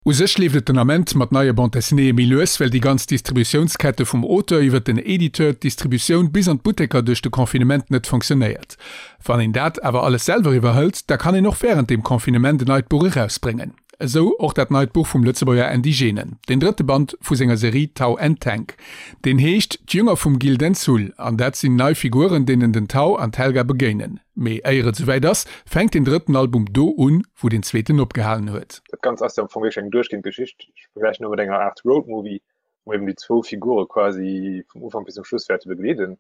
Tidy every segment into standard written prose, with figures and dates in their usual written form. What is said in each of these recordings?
U sech leeft et den Ament mat neie Bande dessinéeë méi lues, well déi ganz Distributiounskette vum Auteur iwwer den Editeur, d'Distributioun bis an d'Butteker duerch de Confinement net fonctionnéiert. Wann een dat awer alles selwer iwwerhëlt, da kann een och wärend dem Confinement en neit Buch erausbréngen. Esou och dat neit Buch vum Lëtzebuerger Andy Genen, den drëtte Band vu senger Serie Tau and Tank. Deen heescht D'Jünger vum Gildenzull an dat sinn nei Figuren, deenen den Tau an d'Helga begéinen. Mee éier et souwäit ass, fänkt den drëtten Album do un, wou den zweeten opgehalen huet. Dat Ganzt ass jo am Fong wierklech eng duerchgehend Geschicht. Ech vergläichen elo mat enger Aart Roadmovie, wou eben déi zwou Figure quasi vum Ufank bis zum Schluss wäerte begleeden.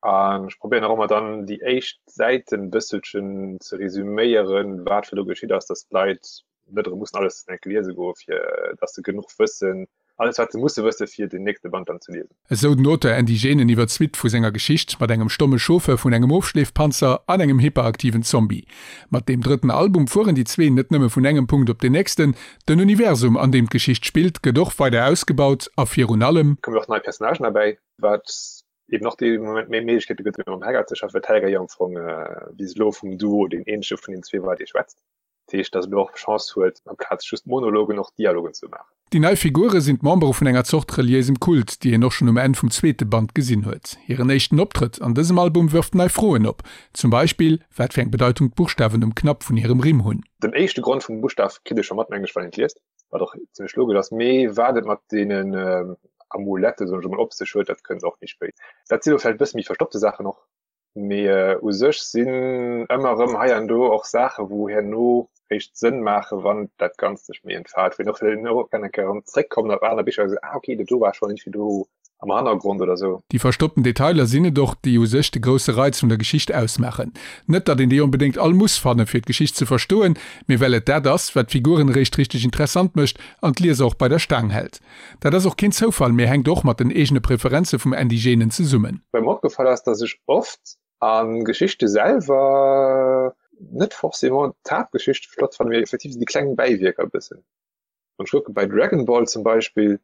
An ech probéieren och ëmmer dann déi éischt Säiten e bësselchen ze resüméieren, wat fir do geschitt ass, dass d'Leit net erëm mussen alles enk liese goe fir dass se genuch wëssen, alles wat se musse wësse fir den nächste Band dann ze liesen. Esou den Auteur Andy Genen iwwer d'Suite vu senger Geschicht mat engem stomme Chauffeur vun engem Ofschleefpanzer an engem hyperaktiven Zombie. Mat deem drëtten Album fueren déi zwee net nëmme vun engem Punkt op den nächsten, den Universum an deem d'Geschicht spillt gëtt och weider ausgebaut a virun allem. Kommen och nei Personnagen derbäi, wat eben och dee Moment méi Méiglechkeete gëtt fir mam Helga ze schaffen, well d'Helga jo am Fong bis elo vum Duo deen eenzege vun den zwee war dee schwätzt. Dat heescht, datt elo och d'Chance huet, amplaz just Monologen och Dialogen ze maachen. Déi nei Figure sinn d'Membere vun enger Zort reliéisem Kult, déi een och schonn um Enn vum zweete Band gesinn huet. Hiren éischten Optrëtt an dësem Album wërft nei Froen op, zum Beispill wat fir eng Bedeitung d'Buchstawen um Knapp vun hirem Rimm hunn. Den éischte Grond vum Buschtaf kritt ee scho mat, mengen ech, wann een et liest, wat och zimmlech logesch ass. Mee wat et mat deenen Amulette, soen ech emol, op sech huet, dat kënnt och méi spéit. Dat si lo vläicht e bësse méi verstoppte Saachen och, Mee u sech sinn ëmmer erëm hei an do och Saache wou herno réischt Sënn maache wann dat Ganzt sech méi entfaalt, wou een och herno kann eng Kéier erëm zréckkommen op aner Bicher a soen, ah okay, dat do war schonn iergendwéi do am Hannergrond oder sou. Déi verstoppten Detailer sinn et och, déi u sech de grousse Reiz vun der Geschicht ausmaachen. Net datt een déi onbedéngt all muss fannen, fir d'Geschicht ze verstoen, mee well et dat ass, wat d'Figuren eréischt richteg interessant mécht an d'Lieser och bei der Staang hält. Dat ass och keen Zoufall, mee hänkt och mat den eegene Preferenze vum Andy Genen zesummen. Wat mer opgefall ass, dass ech oft a Geschichte selwer net forcément d'Haaptgeschicht flott fannen, mee effektiv esou déi kleng Bäiwierker e bëssen. Wann ech kucke bei Dragon Ball zum Beispill,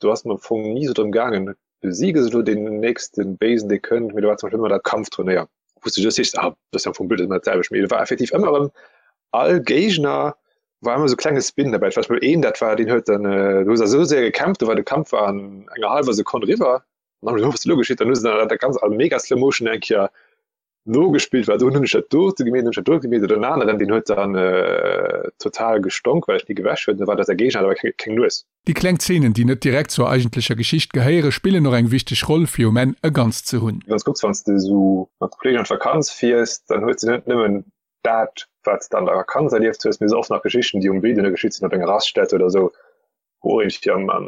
do ass et mer am Fong ni esou drëm gaangen, besiege se elo deen nächste Béisen, dee kënnt, mee do war zum Beispill ëmmer dat Kampfturnéier, wou s de just sees, ah, dat ass jo am Fong blöd, dat ass ëmmer dat selwecht. Mee do war effektiv ëmmer erëm all Géigner war ëmmer sou klenge Spin dabei. Ech weess mol een, dat war, deen huet dann, do hu se esou séier gekämpft, do war de Kampf war an enger hallwer Sekonn eriwwer. An dann hu se, was elo geschitt? Dann hu se dann dat ganz a mega Slow Motion eng Kéier nogespillt, well do hunn ech dat dote gemeet, hunn ech dat dote gemeet. Oder en aneren, deen huet dann total gestonk, well ech ni gewäsch huet, da war dat säi Géigner, hat awer keng, keng Nues. Déi kleng Zeenen, déi net direkt zur eigentlecher Geschicht gehéiere, spillen och eng wichteg Roll, fir um Enn e Ganzt ze hunn. Wann s kucks, wann s de esou mat Kolleegen an d'Vakanz fiers, dann hues de net nëmmen dat, wat s de an der Vakanz erlieft hues, mee se oft nach Geschichten, déi um Wee duerno geschitt sinn, op enger Raststätte oder esou, wou och iergendwéi am, am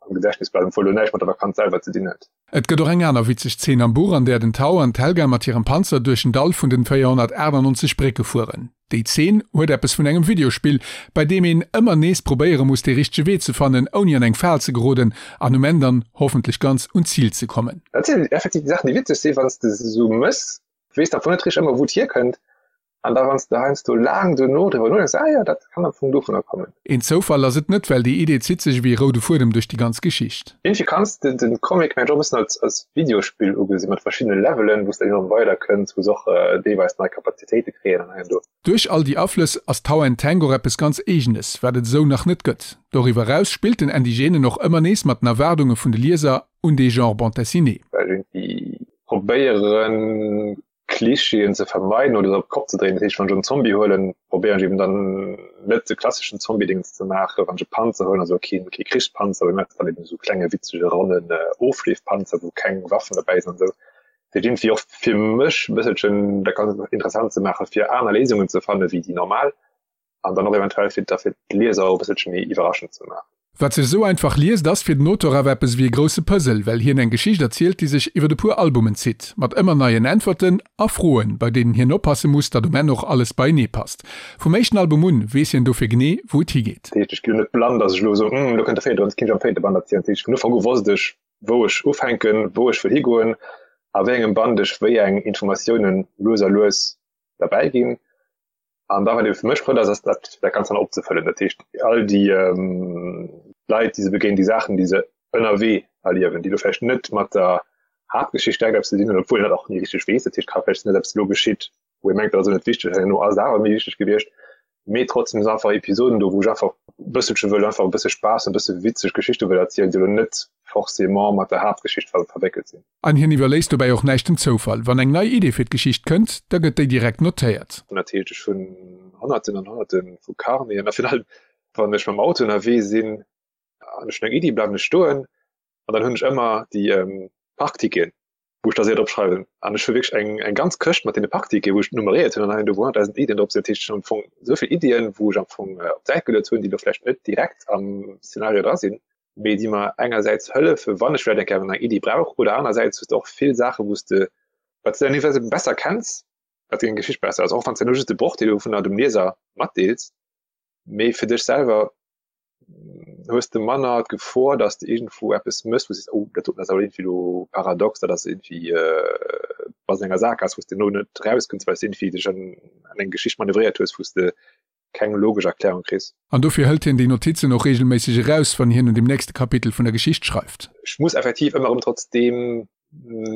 Gedächtnis bleiwen, obwuel elo näischt mat der Vakanz selwer ze dinn huet. Et gëtt och eng aner witzeg Zeen am Buch, an där den Tau an d'Helga mat hirem Panzer duerch den Dall vun den 498 Brécke fueren. Déi Zeen huet eppes vun engem Videospill, bei deem een ëmmer nees probéiere muss, dee richtege Wee ze fannen, ouni an eng Fal ze geroden an um Enn dann hoffentlech ganz un d'Zil ze kommen. Dat sinn effektiv déi Saachen, déi witzeg sinn, wann s de se esou mëss, weess am Fong net richteg ëmmer wou et hierkënnt an da wann s de heiansdo laang duerno driwwer nodenks, ah jo, dat kann am Fong dovunner kommen. Een Zoufall ass et net, well déi Idee zitt sech ewéi e roude Fuedem duerch déi ganz Geschicht. Iergendwéi kanns de den Comic mengen ech och e bëssen als als Videospill ugesinn, mat verschiddene Levelen, wou s de dann ëmmer weider kënns, wou s och deelweis nei Kapazitéite kréien an hei an do. Duerch all déi Aflëss ass Tau and Tank och eppes ganz Eegenes, wat et esou nach net gëtt. Doriwwer eraus spillt den Andy Genen och ëmmer nees mat den Erwaardunge vun de Lieser un dee Genre Bande Dessinée. Well iergendwéi probéieren Klischeeën ze vermeiden oder se op d'Kopp ze dréinen. Dat heescht, wann ech en Zombie huelen, probéieren ech eben dann net de klasseschen Zombie-Dingens ze maachen. Wann ech e Panzer huelen, also keen, kee Krichspanzer, mee maachen dann eben esou klenge witzege ronnen Ofleefpanzer, wou keng Waffen derbäi sinn an esou. Dat heescht, iergendwéi och fir mech e bësselchen dat Ganzt interessant ze maachen, fir aner Léisungen ze fannen, wéi déi normal. an dann och eventuell fir da fir d'Lieser och e bësselche méi iwwerraschend ze maachen. Wat sech esou einfach liest, ass fir den Auteur awer eppes ewéi e grousse Puzzle, well hien eng Geschicht erzielt, déi sech iwwer e puer Albumen zitt, mat ëmmer neien Äntwerten a Froen, bei deenen hien oppasse muss, datt um Enn och alles beienee passt. Vum éischten Album un weess hien dofir genee, wou et higeet. Dat heescht, ech ginn net blann, datt ech elo soen, Hm, elo kënnt de véierte Band, jetzt kéint ech am véierte Band erzielen. Dat heescht, vun Ufank u wosst ech, wou ech ufänken, wou ech wëll higoen, a wéi engem Band ech wéi eng Informatiounen lues a lues derbäi ginn. An da wat ebe fir mech flott ass, ass dat dat Ganzt dann opzefëllen. Dat heescht all déi Leit, déi se begéinen, déi Saachen, déi se ënnerwee erliewen, déi elo vläicht net mat der Haaptgeschicht direkt eppes ze dinn hunn, obwuel een dat och ni richteg weess. Dat heescht, ka vläicht sinn, datt eppes elo geschitt, wou ee mengt, dat ass elo net wichteg, herno ass et awer méi wichteg gewiescht. Mee trotzdem sinn einfach Episoden do, wou ech einfach e bësselche wëll einfach e bësse Spaass, e bësse witzeg Geschichte wëll erzielen, déi elo net forcément mat der Haaptgeschicht ver verwéckelt sinn. An hien iwwerléisst dobäi och näischt dem Zoufall. Wann eng nei Idee fir d'Geschicht kënnt, da gëtt déi direkt notéiert. Dat heescht, ech hunn Honnerten an Honnerte vu Carneten a virun allem, wann ech mam Auto ënnerwee sinn an ech hunn eng Iddi, bleiwen ech stoen an dann hunn ech ëmmer déi Parkticketen, wou ech da séier drop schreiwen. An ech hu wierklech eng, eng ganz Këscht mat deene Parkticketen, wou ech nummeréiert hunn an hei an do wou 100.000 Iddien drop sinn. Dat heescht, ech hunn am Fong esou vill Iddien, wou ech am Fong op d'Säit geluet hunn, déi elo vläicht net direkt am Szenario dra sinn, mee déi mer engersäits hëllefen, wann ech vläicht eng Kéier eng Iddi brauch, oder anersäits hues de och vill Saachen, wou s de, wat s de dann jeeweils eben besser kenns, wat deng Geschicht besser ass, och wann s de nur just de Brochdeel dovunner dem Lieser matdeels, mee fir dech selwer hues de manner d'Gefor, dass de iergendwou eppes mëss, wou du sees, oh, dat doten ass awer iergendwéi elo paradox, dat ass iergendwéi, bass an enger Saakgaass, wou s de elo net erauskënns, well s de iergendwéi dech an eng Geschicht manövréiert hues, wou s de keng logesch Erklärung kriss. An dofir hëlt hien déi Notizen och reegelméisseg eraus, wann hien un dem nächste Kapitel vun der Geschicht schreift. Ech muss effektiv ëmmer erëm trotzdeem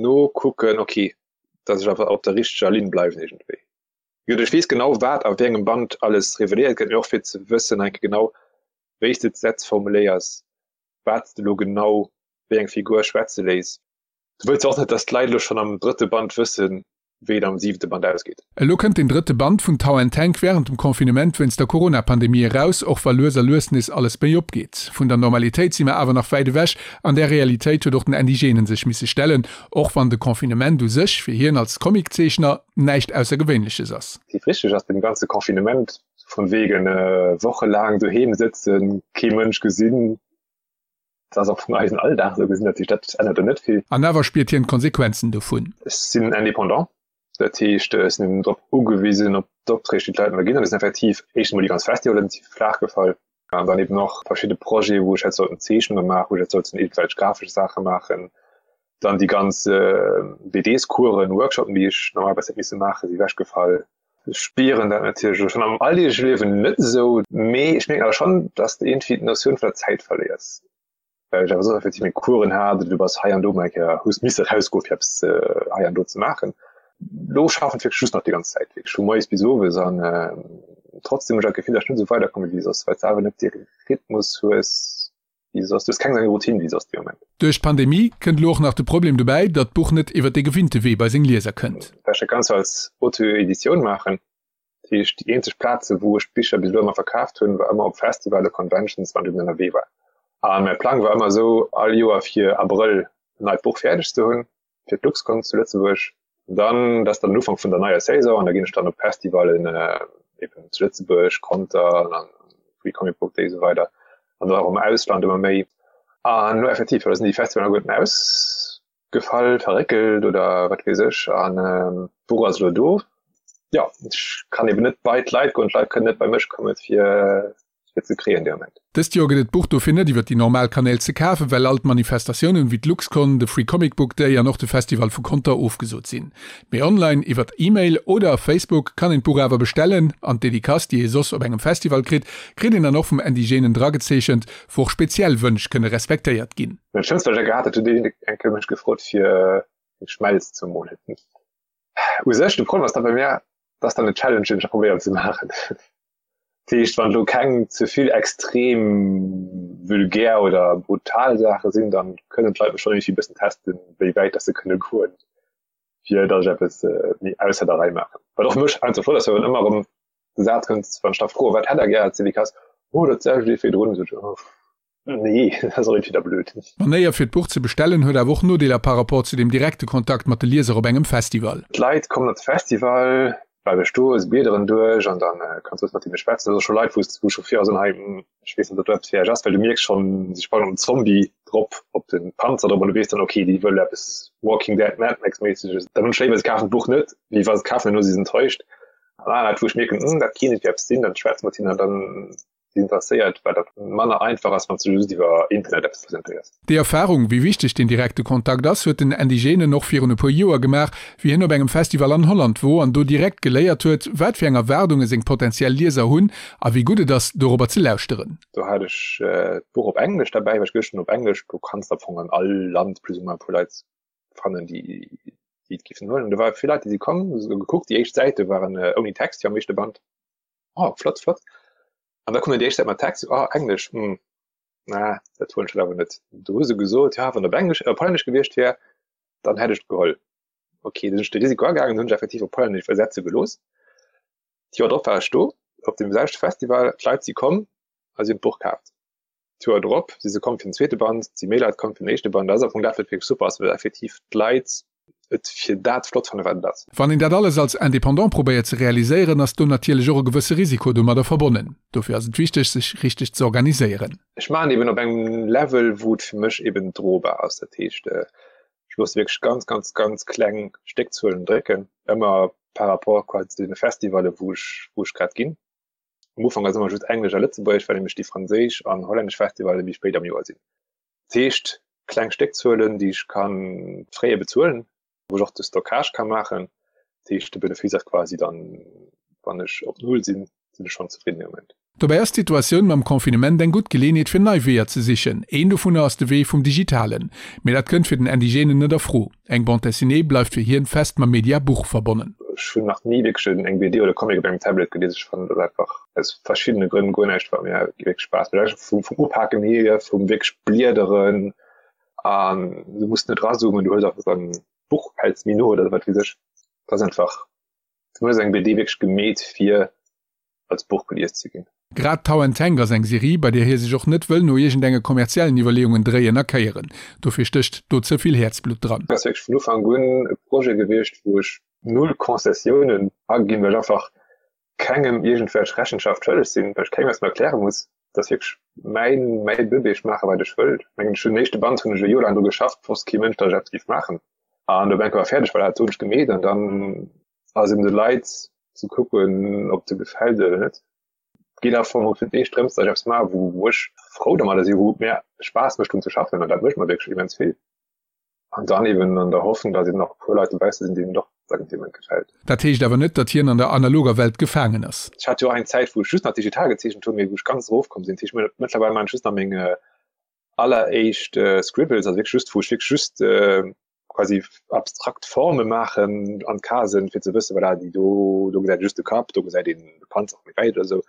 nokucken, okay, dass ech awer op der richteger Linn bleiwen iergendwéi. Gutt, ech weess genau, wat a wéi engem Band alles reveléiert gëtt, mee och fir ze wëssen eng Kéier genau, wéi s de d'Sätz formuléiers, wat s de elo genau wéi eng Figur schwätze léiss. Du wëlls jo och net, dass d'Leit elo schonn am drëtte Band wëssen, wéi et am siwente Band ausgeet. Elo kënnt den drëtte Band vun Tau and Tank wärend dem Confinement wéinst der Corona-Pandemie eraus, och wa lues a lues nees alles méi opgeet. Vun der Normalitéit si mer awer nach wäit ewech. An där Realitéit huet och den Andy Genen sech misse stellen, och wann de Confinement u sech fir hien als Comic-Zeechner näischt Aussergewéinleches ass. Déi richteg ass dem ganze Confinement vun wegen wochelaang doheem sëtzen, kee Mënsch gesinn, dat ass am Fong eisen Alldag esou gesinn, dat heescht dat ännert do net vill. An awer spiert hien d'Konsequenzen dovun. Ech sinn Indépendant, dat heescht ech sinn eben drop ugewisen op d'Opträg déi d'Leit mer ginn an et sinn effektiv éischt emol déi ganz Festivalen si flaach gefall an dann eben och verschidde Projete wou ech hätt sollten Zeechnunge maachen, wou ech hätt sollten iergendwelch grafesch Saache maachen. Dann déi ganz BDs-Coursen, Workshopen, déi ech normalerweis hätt misse maachen, si ewechgefall. Ech spieren dat natierlech elo schonn am alldeegleche Liewen net esou, mee ech mierken awer schonn, dass de iergendwéi d'Notioun vun der Zäit verléiers, well ech awer soss effektiv meng Coursen hat oder du bass hei an do mol eng Kéier, hues misse erausgoen, fir eppes hei an do ze maachen. Elo schaffen ech wierklech just nach déi ganz Zäit, wierklech vu moies bis owes an trotzdem hunn ech awer d'Gefill, dass ech net esou weiderkomme wéi soss, well s de awer net dee Rhythmus hues, wéi soss. Du hues keng esou eng Routine wéi soss dee Moment. Duerch d'Pandemie kënnt elo och nach de Problem dobäi, datt d'Buch net iwwer de gewinnte Wee bei seng Lieser kënnt. Well ech dat Ganzt als Auto-Editioun maachen, dat heescht déi eenzeg Plaze wou ech d'Bicher bis elo ëmmer verkaaft hunn, war ëmmer op Festivale, Conventions, wann ech eben ënnerwee war. A mäi Plang war ëmmer esou, all Joer fir Abrëll en neit Buch fäerdeg ze hunn. fir d'LuxCon zu Lëtzebuerg. Dann, dat ass dann den Ufank vun der neier Saison an da ginn ech dann op Festivalen eben zu Lëtzebuerg, Conter an Free Comic Book Day esou weider an dann och am Ausland ëmmer méi. An elo effektiv, da sinn déi Festivalen alleguerten ausgefall, verréckelt oder wat weess ech an d'Buch ass elo do. Jo, ech kann eben net bei d'Leit goen, d'Leit kënnen net bei mech kommen fir fir ze kréien dee Moment. Dëst Joer gëtt et d'Buch dofir net iwwer déi normal Kanäl ze kafen, well all d'Manifestatiounen wéi d'LuxCon, de Free Comic Book Day an och de Festival vu Conter ofgesot sinn. Mee online iwwert E-Mail oder Facebook kann een d'Buch awer bestellen an d'Dedicace, déi ee soss op engem Festival kritt, kritt een dann och vum Indigenen dragezeechent, wou och speziell Wënsch kënne respektéiert ginn. Dat schlëmmst wat ech gehat hat, huet een eng Kéier mech gefrot fir eng Schmelz ze molen. U sech de Problem ass da bei mir, dat ass dann en Challenge deen ech da probéieren ze maachen. Dat heescht, wann elo keng ze vill extrem vulgär oder brutal Saache sinn, dann kënnen d'Leit mech schonn iergendwéi e bëssen testen, wéi wäit dass se kënne goen, fir dass ech eppes méi ausser der Rei maachen. Wat och mech einfach flott ass, well wann ëmmer erëm de Saz kënnt, wann ech da froen, wat hätt der gär als Dedicace, oh dat selwecht wéi virdrun, sot ech, oh nee, dat ass och iergendwéi da blöd. D'Manéier fir d'Buch ze bestellen huet awer och Nodeeler par rapport zu dem direkte Kontakt mat de Lieser op engem Festival. D'Leit kommen op de Festival, bleiwe stoen, se bliederen duerch an dann kanns du mat hinne schwätzen. Dat ass scho Leit, wou wou scho vir soen, hei ech weess net, ob dat eppes fir iech ass, well du mierks schonn, si sprangen op den Zombie drop, op de Panzer drop an du weess dann, okay, déi wëlle eppes Walking Dead, Mad Max méisseges. Dann hunn ech léiwer, se kafen d'Buch net, wéi wa se et kafen an duerno si se enttäuscht. An aner Leit, wou ech mierken, hm, dat kéint eppes sinn, dann schwätze mat hinnen an dann interesséiert, well dat manner einfach ass, wann s du just iwwer Internet eppes presentéiers. Déi Erfarung, wéi wichteg den direkte Kontakt ass, huet den Andy Genen och virun e puer Joer gemaach, wéi hien op engem Festival an Holland wor an do direkt geléiert huet, wat fir eng Erwaardunge seng potentiell Lieser hunn a wéi gutt et ass, dorobber ze lauschteren. Do hat ech d'Buch op Englesch derbäi, well ech geduecht hunn, op Englesch, do kanns de am Fong an all Land plus ou moins e puer Leit fannen, déi déi et géifen huelen. Do ware vill Leit, déi si komm, hu se gekuckt. Déi éischt Säite waren ouni Text, jo am éischte Band. Oh, flott, flott. An da kommen déi éischt Säit mat Text, oh, Englesch, hm, na, dat huelen ech awer net. Du hu se gesot, ja, wann op Englesch, op Hollännesch gewiescht wär, dann hätt ech et geholl. Okay, dann sinn ech de Risiko agaangen, hunn ech effektiv op Hollännesch iwwersetze gelooss. D'Joer drop war ech do, op deem selwechte Festival, d'Leit si komm a si hunn d'Buch kaaft. D'Joer drop si se komm fir den zweete Band, si méi Leit komm fir den éischte Band. Dat ass am Fong dat, wat wierklech super ass, well effektiv d'Leit et fir dat flott fannen, wat et ass. Wann een dat alles als Indépendant probéiert ze realiséieren, ass do natierlech och e gewësse Risiko domadder verbonnen. Dofir ass et wichteg, sech richteg ze organiséieren. Ech maachen eben op engem Level, wou et fir mech eben drobar ass. Dat heescht, ech loosse wierklech ganz, ganz, ganz kleng Stéckzuelen drécken, ëmmer par rapport quasi zu deene Festivalle, wou ech, wou ech grad ginn. Am Ufank ass ëmmer just Englesch a Lëtzebuergesch, well nämlech déi franséisch an hollännesch Festivalle méi spéit am Joer sinn. Dat heescht, kleng Stéckzuelen, déi ech ka fréier bezuelen, wou ech och de Stockage ka maachen. Dat heescht, de Benefice ass quasi dann, wann ech op Null sinn, sinn ech schonn zefridden dee Moment. Dobäi ass d'Situatioun mam Confinement eng gutt Geleeënheet fir nei Weeër ze sichen. Een dovunner ass de Wee vum Digitalen. Mee dat kënnt fir den Andy Genen net a Fro. Eng Bande dessinée bleift fir hien fest mam Media Buch verbonnen. Ech hunn nach ni wierklech eng BD oder Comic op engem Tablet gelies. Ech fannen dat einfach aus verschiddene Grënn guer näischt wat mir wierklech Spaass mécht. Einfach vum Upaken hier, vum wierklech Bliederen an du muss net razoomen, du hues einfach dann d'Buch häls méi no oder wat weess ech. Dat ass einfach, fir mech ass eng BD wierklech gemeet fir als Buch gelies ze ginn. Grad Tau and Tank ass eng Serie, bei där hie sech och net wëll no iergendenge kommerziellen Iwwerleeungen dréien a kéieren. Dofir stécht do ze vill Häerzblutt dran. Ass wierklech vun Ufank un e Projet gewiescht, wou ech null Concessiounen aginn, well ech einfach kengem iergendwelch Rechenschaft schëlleg sinn, well ech kengem eppes méi erkläre muss. Dat ass wierklech mäin, mäi Bëbee, ech maache wat ech wëll. Ech mengen, ech hunn den éischte Band hunn ech e Joer laang dru geschafft, wosst kee Mënsch, datt ech eppes géif maachen. An op eng Kéier war fäerdeg, well dat hunn ech gemeet an dann ass eben de Leit ze kucken, ob de gefält oder net. Geet am Fong fir d'éischt drëms, datt ech eppes maachen, wou wou ech frou domadder sinn, wou et mir Spaass mécht drun ze schaffen an dat mécht mer wierklech immens vill. An dann eben an der Hoffnung, datt eben nach e puer Leit dobausse sinn, deenen och dat an deem Moment gefält. Dat heescht awer net, datt hien an der analoger Welt gefaangen ass. Ech hat jo och eng Zäit, wou ech just nach digital gezeechent hunn, mee wou ech ganz erofkomm sinn. Dat heescht, mëttlerweil maachen ech just nach meng alleréischt Scribbles, also wierklech just, wou ech wierklech just quasi abstrakt Forme maachen an d'Casen, fir ze wëssen, voilà, déi do, do gesäit ee just de Kapp, do gesäit een de Panzer méi wäit oder esou.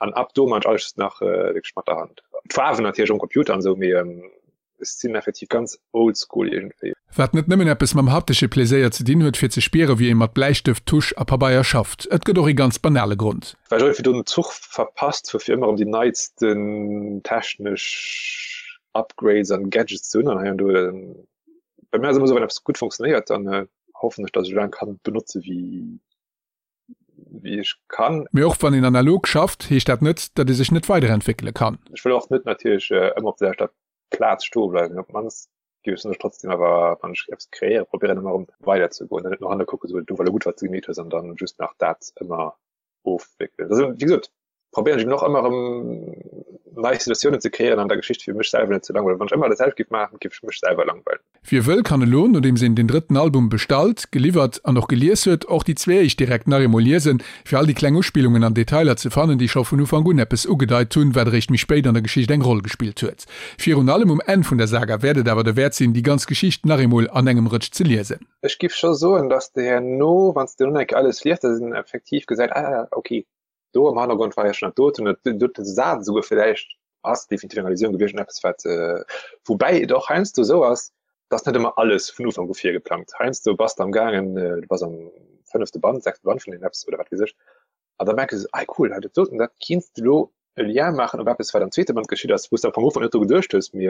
An ab do maan ech alles just nach wierklech mat der Hand. D'Faarwen natierlech um Computer an esou, mee ech sinn effektiv ganz oldschool iergendwéi. Wat net nëmmen eppes mam haptesche Pleséier ze dinn huet, fir ze spieren, wéi ee mat Bläistëft, Tusch a Pabeier schafft. Et gëtt och ee ganz banale Grond. Well ech iergendwéi do den Zuch verpasst hu fir ëmmer erëm déi neitsten technesch Upgrades an Gadgets ze hunn an hei an do. Bei mir ass ëmmer esou, wann eppes gutt funktionéiert, dann hoffen ech, datt ech esou laang kann benotze wéi wéi ech kann. Mee och wann een analog schafft, heescht dat net, datt ee sech net weiderentwéckele kann. Ech wëll och net natierlech ëmmer op der selwechter Plaz stoe bleiwen. Op d'mannst géif ech soen, trotzdem awer, wann ech eppes kreéieren, probéieren ëmmer erëm weiderzegoen an net no hanne kucken, esou, do war elo gutt, wat s de gemeet hues an dann just nach dat ëmmer ofwéckelen. Also, wéi gesot, probéieren ech eben och ëmmer erëm nei Situatiounen ze kreéieren an der Geschicht, fir mech selwer net ze langweilen. Wann ech ëmmer dat selwecht géif maachen, géif ech mech selwer langweilen. Wie wëll, kann elo, nodeems een den drëtten Album bestallt, geliwwert an och gelies huet, och déi zwee éischt direkt nach eemol liesen, fir all déi kleng Uspillungen an Detailer ze fannen, déi scho vun Ufank un eppes ugedeit hunn, wat eréischt méi spéit an der Geschicht eng Roll gespillt huet. Virun allem um Enn vun der Saga wäert et awer derwäert sinn, déi ganz Geschicht nach eemol an engem Rëtsch ze liesen. Ech giff scho soen, dass de herno, wann s de dunn eng Kéier alles liest, dass een effektiv gesäit, ah, okay, do am Hannergrond war jo schon dat doten, dat dote Saz esouguer villäicht ass definitiv eng Allusioun gewiescht un eppes wat, woubäi et och heiansdo esou ass, dass net ëmmer alles vun Ufank u virgeplangt. Heiansdo bass de am gaangen, du bass am fënnefte Band, sechste Band vun deem eppes oder wat weess ech, an da merks du esou, ah cool, dat doten, dat kinns de lo e Lien maachen op eppes wat am zweete Band geschitt ass, wou s de am Fong Ufank net dru geduecht hues, mee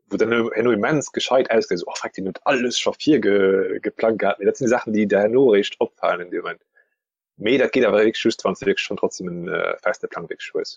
wou dann herno immens gescheit ausgesäit, esou, oh freck, deen huet alles scho virgeplangt gehat. Mee dat sinn déi Saachen, déi der herno eréischt opfalen in deem Moment. Mee dat geet awer wierklech just, wann s de wierklech schonn trotzdem en feste Plang wierklech hues.